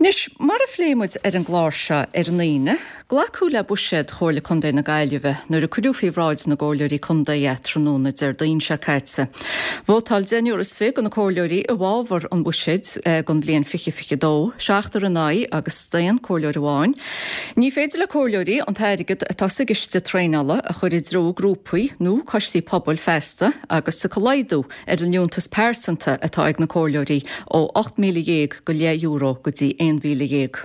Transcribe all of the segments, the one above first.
Anois, mar a phléigh muid ar an gclár seo ar an Aoine, glacadh le buiséad Chomhairle Contae na Gaillimhe nuair a cuireadh faoi bhráid na gComhairleoirí Contae é tráthnóna Déardaoin seo caite. Vótáil deichniúr is 20 de na Comhairleoirí i bhfabhar an bhuiséid don bhliain 2022, seachtar in aghaidh agus staon Comhairleoir amháin. Ní féidir le Comhairleoirí an t-airgead atá sa gciste traenála a chur i dtreo grúpaí nó coistí pobail feasta agus tiocfaidh laghdú ar an liúntas pearsanta atá ag na comhairleoirí ó €18,000 go leith go dtí 11,000.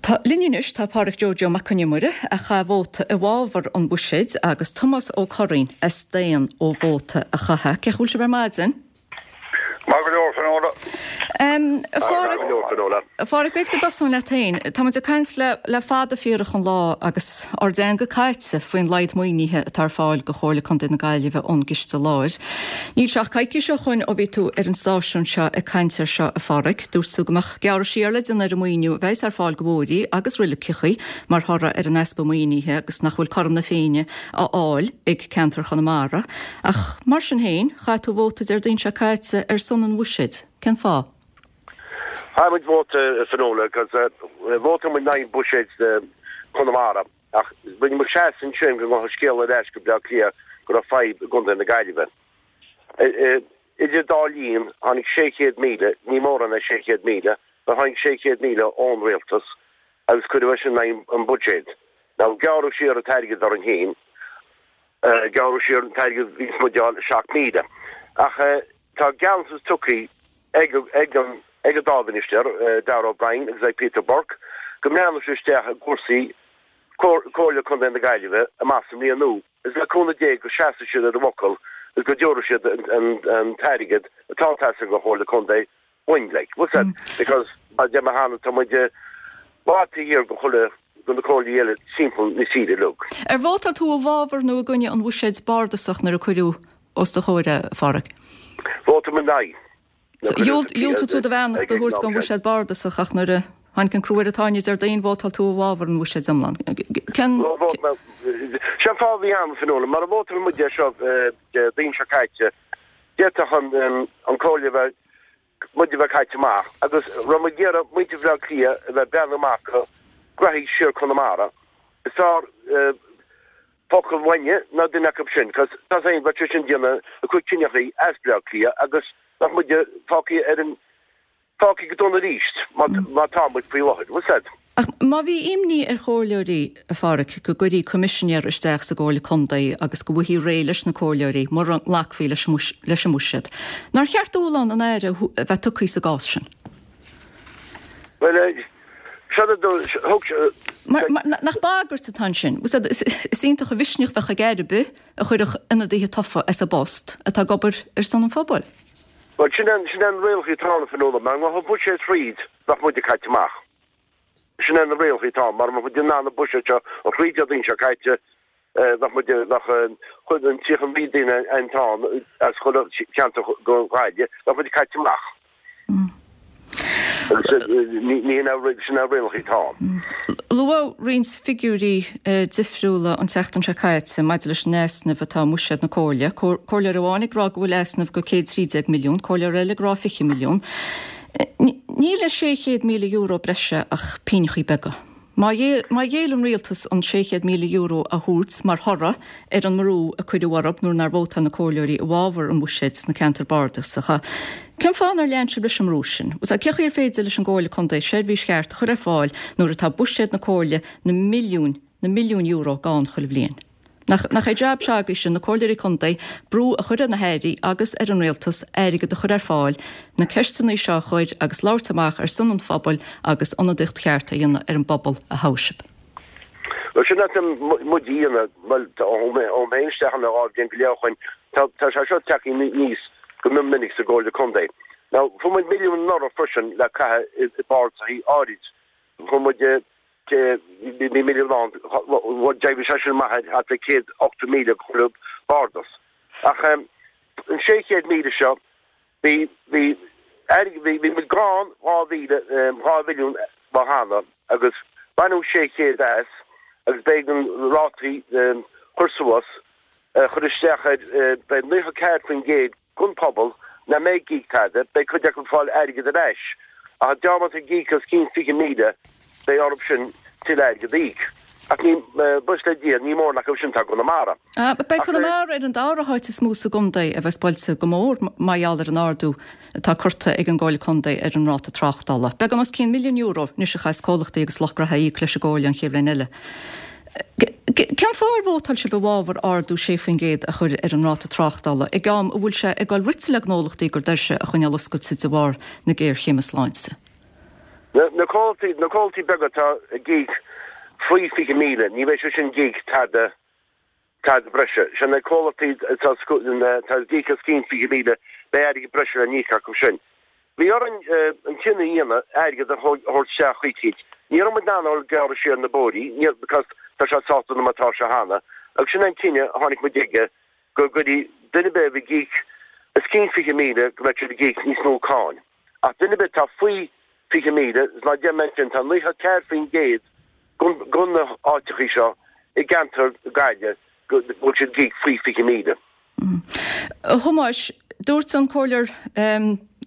Tá linn anois tá Pádhraic Joe Joe Mac Con Iomaire a chaith vóta i bhfabhar an bhuiséid agus Tomás Ó Curraoin a staon ó vóta a chaitheamh. Cén chaoi a bhfuil sibh ar maidin? Maith go leor, Finola. A Phádhraic, A Phádhraic, b'fhéidir go dtosóinn leat féin. Tá muid ag caint le le fada fíorach an lá agus ár dteanga caite faoin laghad maoinithe atá ar fáil do Chomhairle Contae na Gaillimhe ón gCiste Láir. Níl sé ach coicís ó shoin ó bhí tú ar an stáisiún seo ag caint air seo, a Phádhraic. Dúirt tú go mbeadh gearradh siar le déanamh ar an maoiniú a bheas ar fáil do bhóithrí agus roiligeachaí mar thoradh ar an easpa maoinithe agus nach bhfuil cothrom na Féinne á fháil ag ceantar Chonamara. Ach mar sin féin, chaith tú vóta Déardaoin seo caite ar son an bhuiséid. Cén fáth? Chaith muid vóta a Finola agus vótáil muid in aghaidh buiséid Chonamara ach rinne muid seasamh ansin go ngabhadh scéal ar ais go Bleá Cliath go raibh fadhb i gContae na Gaillimhe. Idir dá linn tháinig 600,000, ní mórán é 600,000, but tháinig 600,000 ón rialtas agus cuireadh é sin in aghaidh an buiséid. Now gearradh siar an t-airgead orainn féin, gearradh siar an t-airgead a bhíos muid a fháil 7,000 ach tá gealltanas tugtha ag ag an ag an dá mhinistéir, Darragh O'Brien agus ag Peter Burke, go mbreathnóidh siad isteach i gcúrsaí Comhairle Contae na Gaillimhe amach sa mbliain nua agus le cúnamh Dé go seasfaidh siad ar a bhfocal agus go dtabharfaidh siad an t-airgead atá ag teastáil don Chomhairle Contae uainn like. What's that? Because mar a deir mé cheana tá muid i bhfad taobh thiar de chuile de na comhairlí eile timpeall na tíre uilig. Ar vótáil tú i bhfabhar nó i gcoinne an bhuiséid bardasach nuair a cuireadh os do chomhair é, a Phádhraic? Vótáil mé in aghaidh. Dhiúltaigh tú do bheannacht a thabhairt don bhuiséad bardasach ach nuair a tháinig an crú ar an tairne Déardaoin, vótáil tú i bhfabhar an bhuiséid iomlán. Cén. Sé an fáth a bhí ann, a Finola, mara vótáil muid é seo Déardaoin seo caite, d'fhéadfadh an comhairle a bheith, muid a bheith caite amach agus raibh muid ag iarraidh muintir Bhaile Átha Cliath a bheith ag breathnú amach go graithí siar Conamara. Is fearr focal uainne ná duine acu sin, cos tá a fhios againn bheadh sé sin ag déanamh a cuid cinneachaí as Bleá Cliath agus bheadh muid fágtha ar an fágtha go dona arís mar tá muid faoi láthair. Bhfuil 's a'd? Ach má bhí imní ar chomhairleoirí, a Phádhraic, go gcuirfí coimisinéir isteach sa gComhairle Contae agus go bhfaighfí réidh leis na comhairleoirí mura nglacfaí leis an mbuiséad, nár cheart dúshlán an Aire a bheith tugtha sa gcás sin? Bhuel, seo do, thug sé. Mar, nach bagairt atá ansin? Is iontach an mhisneach a bheadh ag Aire ar bith a chuirfeadh ionadaithe tofa as a bpost atá ag obair ar son an phobail. Bhuel, sin é, sin é na rialacha atá ann, a Finola. Mara ngabhfaí an buiséad thríd, bheadh muide caite amach. Sin é na rialacha atá ann. Mara mbeadh muid in ann an buiséad seo a chur thríd Déardaoin seo caite, bheadh muid, bheadh chuid an 39 duine atá ann as chuile cheantar go Gaillimh, bheadh muid caite amach. Agus ní hin é, sin é na rialacha atá ann. Luadh roinnt figiúirí difriúla an tseachtain seo caite maidir leis an easnamh atá i mbuiséad na Comhairle. Comhairleoir amháin ag rá go bhfuil easnamh go 113 milliún, comhairleoir eile ag rá 20 milliún. Níl i €600,000 breise ach pínneachaí beaga. Má ghéill an rialtas an €600,000 a thabhairt mar thoradh ar an mbrú a cuireadh orthu nuair nár vótáil na comhairleoirí i bhfabhar an bhuiséid sna ceantair bardasacha, cén fáth nár lean sibh leis an mbrú sin? Cén chaoi ar féidir leis an gComhairle Contae seirbhís cheart a chur ar fáil nuair atá buiséad na comhairle na milliúin, na milliúin euro gann chuile bhliain? Nach, nach é jab s'agaibhse, na comhairleoirí contae, brú a chur ar na hairí agus ar an rialtas airgead a chur ar fáil, na ceisteanna seo a chur agus labhairt amach ar son an phobail agus ionadaíocht cheart a dhéanamh ar an bpobal a thogh sibh. Bhuel, sin atá muid a dhéanamh, bhuel, ó tháinig mé isteach ann 2 bhliain go leith ó shoin, tá, tá sé seo tagtha aníos go mion minic sa gComhairle Contae. Now, fuair muid milliún anuraidh freisin le caitheamh i bpardasachaí áirid. Fuair muid bhí milliún ann, d'éirigh sé sin amach ar thart ar 180,000 chuile bardas. Ach an 600,000 seo, bhí, bhí, bhí, bhí muid gann 2,000, 2 mhilliún lá cheana agus baineadh 600 as agus b'éigean rátaí chur suas, chur isteach ar, beidh 94% den phobal nach mbeidh ag íoc tada, beidh cuid acu ag fáil airgead ar ais. Ach dá mbeadh ag íoc os cionn 20,000, beidh orthu sin tuilleadh airgead a íoc. Ach ní, buíochas le Dia, ní mórán acu sin atá i gConamara. Beidh Conamara ar an dara háit is mó sa gcontae a bheas buailte go mór mar gheall ar an ardú atá curtha ag an gComhairle Contae ar an ráta tráchtála. Beagán os cionn €1,000,000 anois a chaithfeas comhlachtaí agus lucht gnaithe a íoc leis an gComhairle an chéad bhliain eile. Cén fáth ar vótáil sibh i bhfabhar ardú 6% a chur ar an ráta tráchtála ag am a bhfuil sé ag dul rite le gnólachtaí a gcuid doirse a choinneáil oscailte de bharr na géarchéime sláinte? Na comhlachtaí, na comhlachtaí beaga atá ag íoc faoi 20,000, ní bheidh siad sin ag íoc tada, tada breise. Sé na comhlachtaí atá, atá ag íoc os cionn 20,000, beidh airgead breise le n-íoc acu sin. Bhí orainn an cinneadh a dhéanamh airgead a thabhairt isteach chuici. Ní raibh muid in ann a dhul ag gearradh siar na bóithrí, níor, because tá sé sách dona mar atá sé cheana, agus sin é an cinneadh a tháinig muid aige, go gcuirfidh duine ar bith a bhí ag íoc os cionn 20,000 go mbeadh siad ag íoc níos mó cáin. Ach duine ar bith atá faoi 20,000, is mar a deir mé ansin, tá 94% de na háiteachaí seo i gceantar Gaillimhe go bhfuil siad ag íoc faoi 20,000. A Thomáis, dúirt an Comhairleoir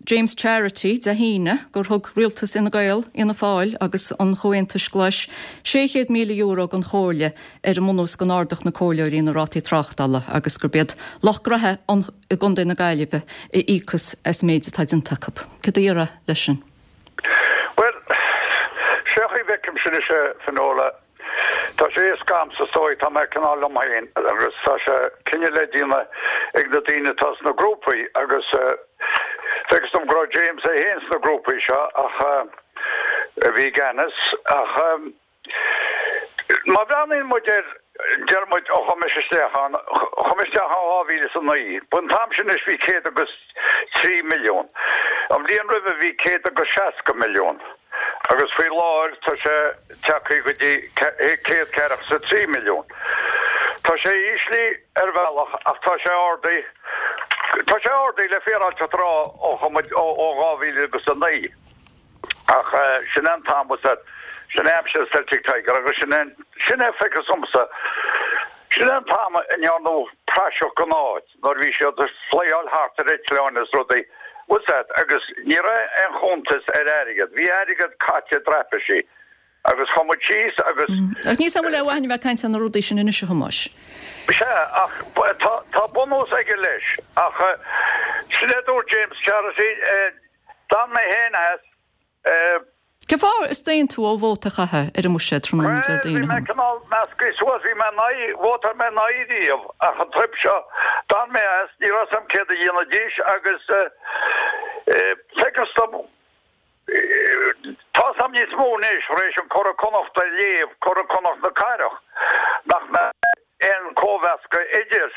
James Charity Dé hAoine gur thug rialtas Fhine Gael, Fhianna Fáil agus an Chomhaontais Ghlais €600,000 don Chomhairle ar an mbunús go n-ardódh na comhairleoirí na rátaí tráchtála agus gurb iad lucht gnaithe i gContae na Gaillimhe a íocfas as an méid atá déanta acu. Céard a déarfá leis sin? Bhuel, sé an chaoi a bhfeicimse anois é, Fionnuala, tá sé éasca a'msa is dóigh, tá mé cineál liom féin agus tá sé cinneadh le déanamh ag na daoine atá sna grúpaí agus feictear dom go raibh James é féin sna grúpaí seo ach a bhí i gceannas ach Má bhreathnaíonn muid air, deir muid, ó chuaigh mise isteach ann, chuaigh mé isteach ann 2009, b'an t-am sin anois bhí 103 milliún. An bhliain roimhe bhí 160 milliún agus faoi láthair tá sé tagtha go dtí 143 milliún. Tá sé íslithe ar bhealach ach tá sé ardaithe, tá sé ardaithe le féaráilteacht a rá ó chuaigh muid ó 2009. Ach sin é an t-am, sin é aimsir Celtic Tiger agus sin é, sin é feictear domsa, sin é an t-am a ndearnadh praiseach den áit nuair a bhí siad ag flyáil thart ar eitleáin is rudaí, bhfuil 's a'd, agus ní raibh aon chuntas ar airgead, bhí airgead caite i dtraipisí agus chuaigh muid síos agus. Ach níl 's a'm an bhfuil aon mhaith a'inn a bheith ag caint ar na rudaí sin anois a Thomáis. Sea, ach tá, tá bunús aige leis, ach sin é a dúirt James Charity, D'fhan mé féin as. Cén fáth ar staon tú ó vóta a chaitheamh ar an mbuiséad tráthnóna Bhuel, Déardaoin, bhí mé cineál measctha suas, bhí mé in aghaidh, vótáil mé in aghaidh riamh, ach an trip seo, d'fhan mé as, ní raibh 's a'm céard a dhéanfaidís agus feictear dom, tá 's a'm níos mó anois, tar éis an Curadh Connacht a léamh, Curadh Connacht na Cathrach, nach mbeadh aon cóimheascadh idir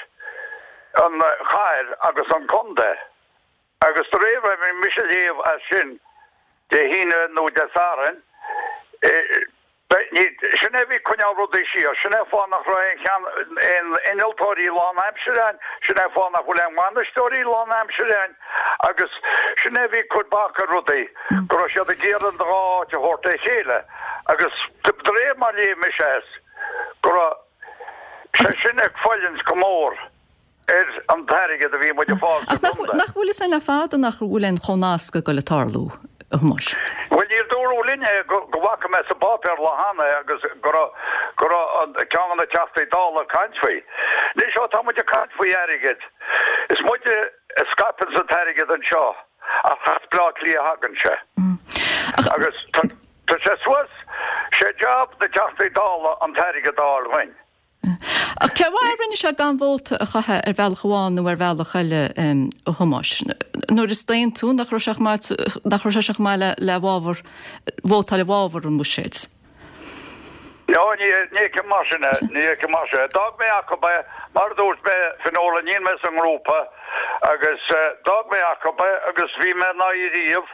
an chathair agus an contae. Agus de réir mar a bhí mise a léamh as sin Dé hAoine nó Dé Sathairn, sin é a bhí ag coinneáil rudaí siar, sin é an fáth nach raibh aon cheann, aon innealtóirí lánaimsire ann, sin é an fáth nach bhfuil aon bhainisteoirí lánaimsire ann agus sin é a bhí ag cur bac ar rudaí, go raibh siad ag iarraidh an dá áit a thabhairt le chéile agus de réir mar a léigh mise as, go raibh sé sin ag fulaingt go mór. ar an t-airgead a bhí muid ag fáil sa Ach gcontae. nach bhfuil fhios a'inn le fada nach bhfuil aon chomhnascadh ag dul ag tarlú, a Thomáis? Bhuel, níor dúradh linn é go bhfaca mé sa bpáipéar lá cheana é agus go raibh go raibh an ceann de na Teachtaí Dála ag caint faoi. Anois ó tá muid ag caint faoi airgead, is muide a scaipeanns an t-airgead anseo ach as Bleá Cliath a thagann sé. Agus tá tá sé suas, sé job na dTeachtaí Dála an t-airgead a fháil dhuinn. Ach cén fáth a rinne sé gan vóta a chaitheamh ar bhealach amháin nó ar bhealach eile, a Thomáis? Nuair a staon tú, nach raibh sé chomh maith, nach raibh sé sin chomh maith le, le bhfabhar, vótáil i bhfabhar an bhuiséid? No, ní, ní fheicim mar sin é, ní fheicim mar sin é. D'fhág mé acu é, mar a dúirt mé, Fionnuala, níl mé sa ngrúpa agus d'fhág mé acu é agus bhí mé in aghaidh riamh,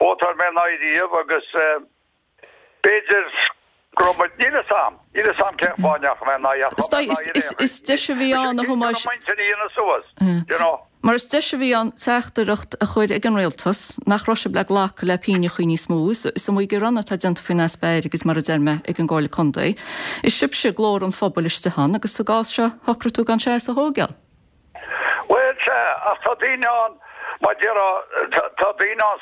vótáil mé in aghaidh riamh agus, B'fhéidir go raibh muid, níl 'fhios a'm, níl 'fhios a'm cén fáth a ndeachaigh mé in aghaidh ach Is tá mé in aghaidh is, is deis a bhí ann, a Thomáis. Cinnte go mb'intinn a dhéanamh suas, you know. Mar is deis a bhí ann teachtaireacht a chur ag an rialtas nach raibh sibh le glacadh le pínneachaí níos mó. Is iomaí gearán atá déanta faoin easpa airgid, mar a deir mé, ag an gComhairle Contae. Is sibhse glór an phobail istigh ann agus sa gcás seo shocraigh tú gan seasamh a thóigeáil. Bhuel, sea, ach tá daoine ann. Mar déarfá, tá daoine ann,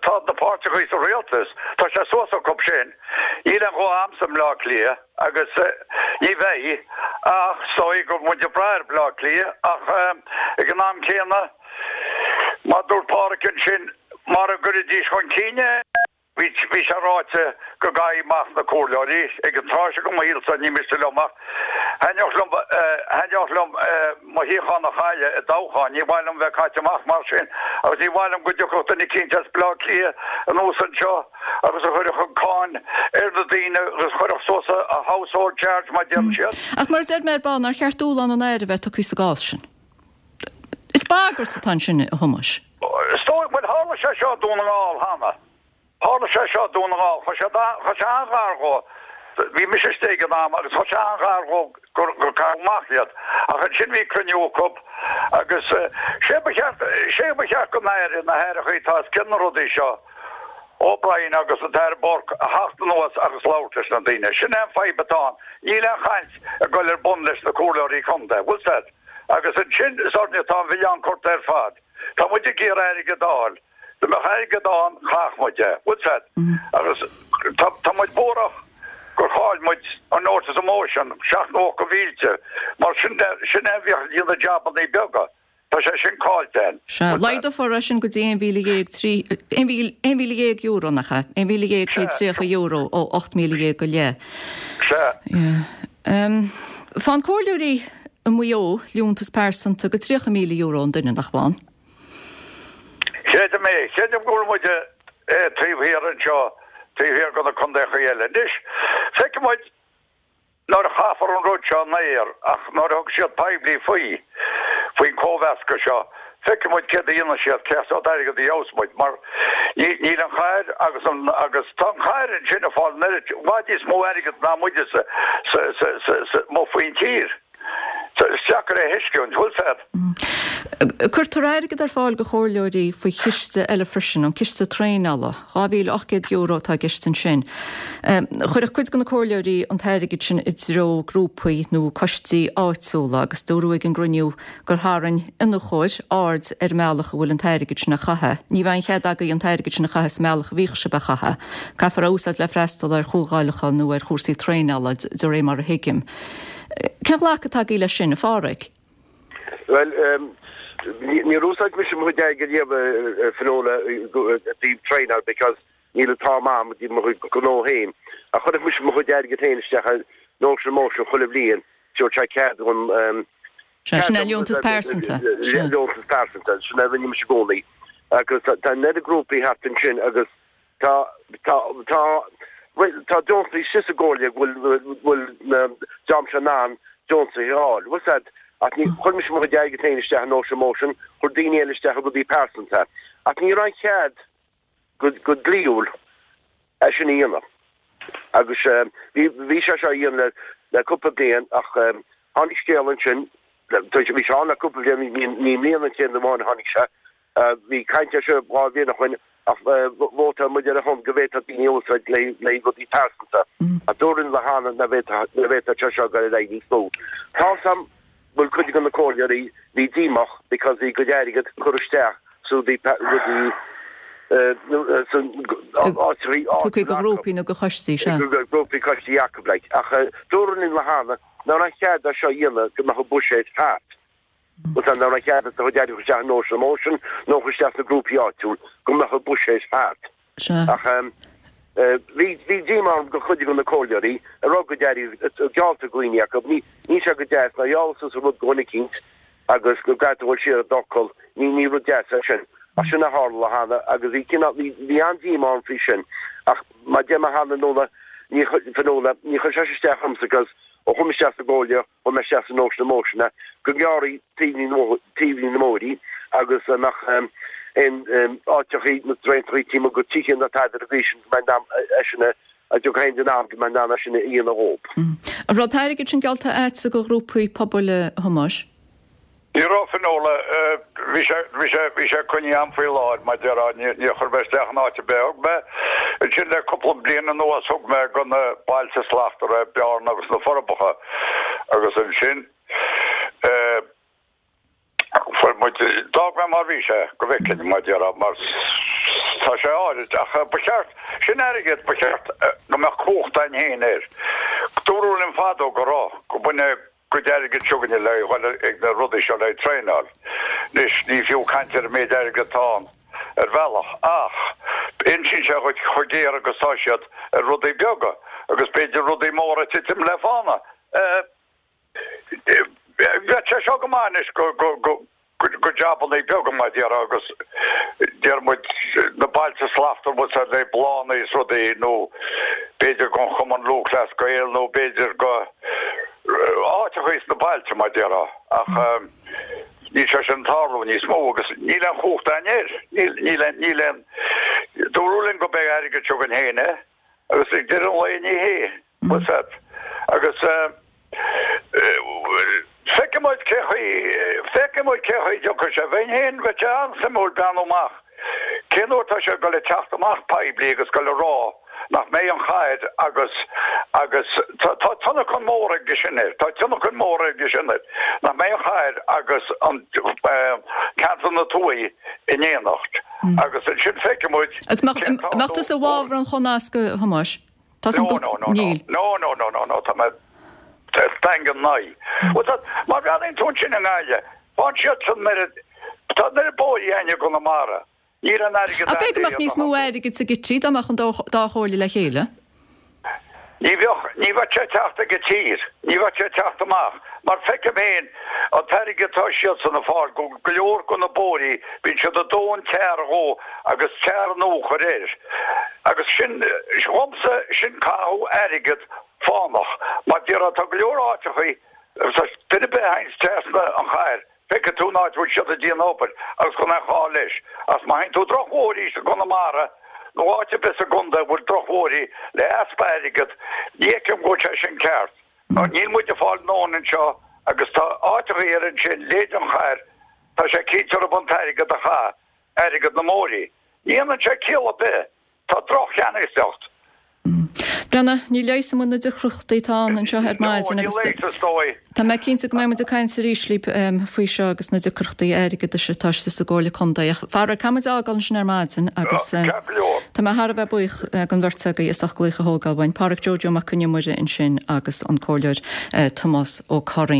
tá na páirteachaí sa rialtas, tá sé suas acu sin. Níl aon ghuth a'msa i mBleá Cliath agus ní bheidh ach is dóigh go bhfuil muid ag brath ar Bhleá Cliath ach ag an am céanna, mar dúirt Pádhraic ansin, mara gcuirfidís chun cinn é, Bhí sé ráite go gcaithfí amach na comhairleoirí ag an tráth seo go mo shaolsa, ní miste liom ach thaitneodh liom, thaitneodh liom mo shuíochán a chailleadh i dtoghchán, ní mhaith liom bheith caite amach mar sin agus ní mhaith liom go dtiocfadh duine eicínt as Bleá Cliath anuas anseo agus a chuirfeadh an cáin ar na daoine agus chuirfeadh suas a household charge mar deireann siad. Ach mar a deir mé ar ball, nár cheart dúshlán an Aire a bheith tugtha sa gcás sin? Is bagairt atá ansin, a Thomáis. Is dóigh, bhuel, tharla sé seo i Dún na nGall cheana. Tharla sé seo i Dún na nGall. Chuaigh sé, chuaigh sé an-ghar dhó. Bhí mise istigh ag an am agus chuaigh sé an-ghar dhó gur, gur caitheadh amach iad. Ach ansin bhí cruinniú acu agus sé ba cheart, sé ba cheart don Aire, na hAireachaí atá os cionn na rudaí seo, O'Brien agus an tAire Burke a theacht anuas agus labhairt leis na daoine. Sin é an fadhb atá ann. Níl aon chaint ag dul ar bun leis na comhairleoirí contae. Bhfuil 's a'd? Agus ansin is orainne atá an milleán curtha ar fad. Tá muid ag iarraidh airgead a fháil. Dá mbeadh airgead ann, chaithfeadh muid é. Bhfuil 's a'd? Agus tá, tá muid buarach gur chaill muid an notice of motion, seacht nócha mhílte, mar sin, sin é a bhíodh ag déanamh jabannaí beaga. Tá sé sin caillte a'inn. Sea, laghdófar é sin go dtí €11,003, €11,000, nach ea? €11,130 ó 18,000 go leith. Sea. Yeah. Faigheann comhairleoirí i Maigh Eo liúntas pearsanta go €30,000 an duine, nach bhfaigheann? Creidim é. Creidim go bhfuil muid taobh thiar anseo, taobh thiar de na contaechaí eile. Anois, feicfidh muid nuair a chaithfear an rud seo in aer, ach nuair a thug siad poiblí faoi, faoin cóimheascadh seo, feicfidh muid céard a dhéanfaidh siad, cén sórt airgead a gheobhas muid, mar níl an chathair agus an, agus tá an chathair ansin ag fáil an oiread, i bhfad níos mó airgead ná muide sa, sa, sa, sa, sa, amuigh faoin tír. Is deacair é a thuisciúint, bhfuil 's a'd. Cuirtear airgead ar fáil do chomhairleoirí faoi chiste eile freisin, an Ciste Traenála. €2,800 atá i gceist ansin. Chuirfeadh cuid de na comhairleoirí an t-airgead sin i dtreo grúpaí nó coistí áitiúla agus dúradh ag an gcruinniú gur tharraing iniúchóir aird ar an mbealach a bhfuil an t-airgead sin á chaitheamh. Ní bheidh aon chead agaibh an t-airgead sin a chaitheamh sa mbealach a bhíodh sibh á chaitheamh. Caithfear é a úsáid le freastal ar chomhdháileacha nó ar chúrsaí traenála, de réir mar a thuigim. Cén ghlacadh atá agaibh leis sin, a Pháraic? Bhuel, níor úsáid mise mo chuid airgid riamh, a Fionnuala, i dtaobh traenáil because níl an t-am a'm i dtaobh mo chuid gnó féin. Ach chuirfeadh mise mo chuid airgid féin isteach i Notion Motion chuile bhliain, tabharfaidh sé cead dhom, Sea, sin é liúntas pearsanta. Liúntas pearsanta, sin é a rinne mise i gcónaí. Agus tá an oiread grúpaí thart ansin agus Tá, tá, tá, bhuel, tá deontaí istigh sa gcomhairle go bhfuil, bhfuil na dream seo in ann deontaithe a fháil. Bhfuil 's a'd, ach ní, chuir mise mo chuid airgid féin isteach i Notion Motion, chuir daoine eile isteach i rudaí pearsanta. Ach ní raibh aon chead go, go dlíthiúil é sin a dhéanamh. Agus bhí, bhí sé seo á dhéanamh le, le cúpla bliain ach tháinig scéal ansin, bhí sé ann le cúpla bliain, ní, ní i mbliana an chéad amháin a tháinig sé, Bhí caint air seo 2 bhliain ó shoin ach vótáil muid ar a shon go bhféadfadh daoine a úsáid le haghaidh rudaí pearsanta. Ach dúradh linn cheana nach bhféadfadh sé seo dul ar aghaidh níos mó. Tá's a'm go bhfuil cuid de na comhairleoirí bhí díomách because bhí a gcuid airgead curtha isteach sa rudaí rudaí san áiteachaí Tugtha do ghrúpaí nó do choistí, sea. Grúpaí coistí acu like. Ach dúradh linn cheana nach raibh cead é seo a dhéanamh go mbeadh an buiséad thart. Bhfuil 's a'd nach raibh cead do chuid airgid a chur isteach i Notion Motion nó a chur isteach sna grúpaí áitiúil go mbeadh an buiséad thart. Sea. Ach bhí bhí díomá orm go chuid de na comhairleoirí a raibh a gcuid airgid geallta ag daoine acu. Ní níl sé go deas nuair a gheallas tusa rud do dhuine eicínt agus go gcaithfidh tú a dhul siar ar d'fhocal. Ní ní rud deas é sin. Ach sin a tharla cheana agus bhí cineál bhí bhí an-díomá orm faoi sin. Ach mar deir mé cheana Nuala ní Fionnuala ní chuir sé sin isteach ormsa 'cause ó chuaigh mé isteach sa gcomhairle Chuaigh mé isteach sa Notion Motion go ngearrfaí taoibhní na mbóithrí agus a mbeadh aon áiteachaí na draentachaí taobh amuigh de tithe na tada ar an gcaoi sin go mbeidh in ann é sin a dtiocfaidh aon duine ann go mbeidh in ann é sin a dhéanamh dhób. An raibh an t-airgead sin geallta a'dsa do ghrúpaí pobail a Thomáis? Ní raibh Fionnuala, bhí sé, bhí sé, bhí sé coinnithe a'm faoi láthair, mar déarfá, ní, níor chuir mé isteach in áit ar bith. Thug mé, ansin le cúpla bliain anuas, thug mé go na Bailte Slachtmhara, Bearna agus na Forbacha agus ansin eh, fuair. muid, d'fhág mé mar bhí sé, go bhfeicfinn, mar a déarfá, mar tá sé áirid, ach ba cheart, sin airgead, ba cheart go mbeadh cumhacht againn féin air. Dúradh linn fadó go raibh, go mbaineadh cuid airgid s'againne le dhul ag na rudaí seo le traenáil. Anois, ní fiú caint ar an méid airgid atá ann ar bhealach, ach insíonn sé dhuit chomh géar agus tá siad ar rudaí beaga, agus b'fhéidir rudaí móra ag titim le fána. Bheadh sé seo go maith anois go jabannaí beaga mar a déarfá agus deir muid na Bailte Slachtmhara bhfuil sé le bláthanna is rudaí nó b'fhéidir gon Chumann Lúthchleas Gael nó b'fhéidir go áiteachaí sna bailte mar a déarfá ach níl sé sin ag tarlú níos mó agus níl aon chumhacht againn air. Níl, níl aon, níl aon, dúradh linn go beidh airgead seo againn féin é agus ag deireadh an lae ní hé. What's that? Agus feicfidh muid cé chaoi, feicfidh muid cé chaoi a dtiocfaidh sé. Bheinn féin, bheadh sé an-suimiúil breathnú amach cén uair atá sé ag dul ag teacht amach poiblí agus dul ag rá nach mbeidh an chathair agus, agus tá, tá tionlacan mór aige sin air, tá tionlacan mór aige sin air, nach mbeidh an chathair agus an ceantar na tuaithe in éineacht. Agus ansin feicfidh muid Agus cén t-ardú. Mbeadh tusa i bhfabhar an chónasctha, a Thomáis? Tá No, no, no, no. No, no, no, no, no, tá mé daingean ina aghaidh. Bhuel, tá, má bhreathnaíonn tú ansin i nGaillimh, faigheann siadsan an oiread, tá an oiread bóithrí againn i gConamara, níl an airgead Ach b'fhéidir go mbeadh níos mó airgid sa gcití dá mbeadh an dá chomhairle le chéile? Ní bheadh, ní bheadh sé ag teacht ag an tír, ní bheadh sé ag teacht amach, mar feicim féin an t-airgead atá siadsan ag fáil, go go leor de na bóithrí, bíonn siad ag dó an tar dhó agus tar nua a chur air. Agus sin, dhomsa, sin caitheamh airgead fánach. Mar déarfá, tá go leor áiteachaí, agus duine ar bith a théanns trasna an chathair, feicfidh tú an áit a bhfuil siad ag déanamh obair agus gan aon chall leis. Ach má théann tú drochbhóithrí i gConamara nó áit ar bith sa gcontae a bhfuil drochbhóithrí le easpa airgead, ní fheicim go bhfuil sé sin ceart. Níl muid ag fáil ndóthain anseo agus tá áiteachaí eile ansin, leithéid an chathair, tá sé cinnte orthu an t-airgead a chaitheamh. airgead na mbóithrí. Ní dhéanann sé ciall ar bith. Tá droch-cheannasaíocht. Breathnaigh, ní leigheasfaidh muid na deacrachtaí atá ann anseo ar maidin agus No, ní leigheasfaidh, is dóigh. tá mé cinnte go mbeidh muid ag caint arís libh faoi seo agus na deacrachtaí airgeadais atá istigh sa gComhairle Contae. Ach faraor, caithfidh muid a fhágáil ansin ar maidin agus Ceart go leor. tá mé thar a bheith buíoch den bheirt agaibh as ucht glaoch a thógáil uainn, Pádhraic Joe Joe Mac Con Iomaire ansin agus an Comhairleoir Tomás Ó Curraoin.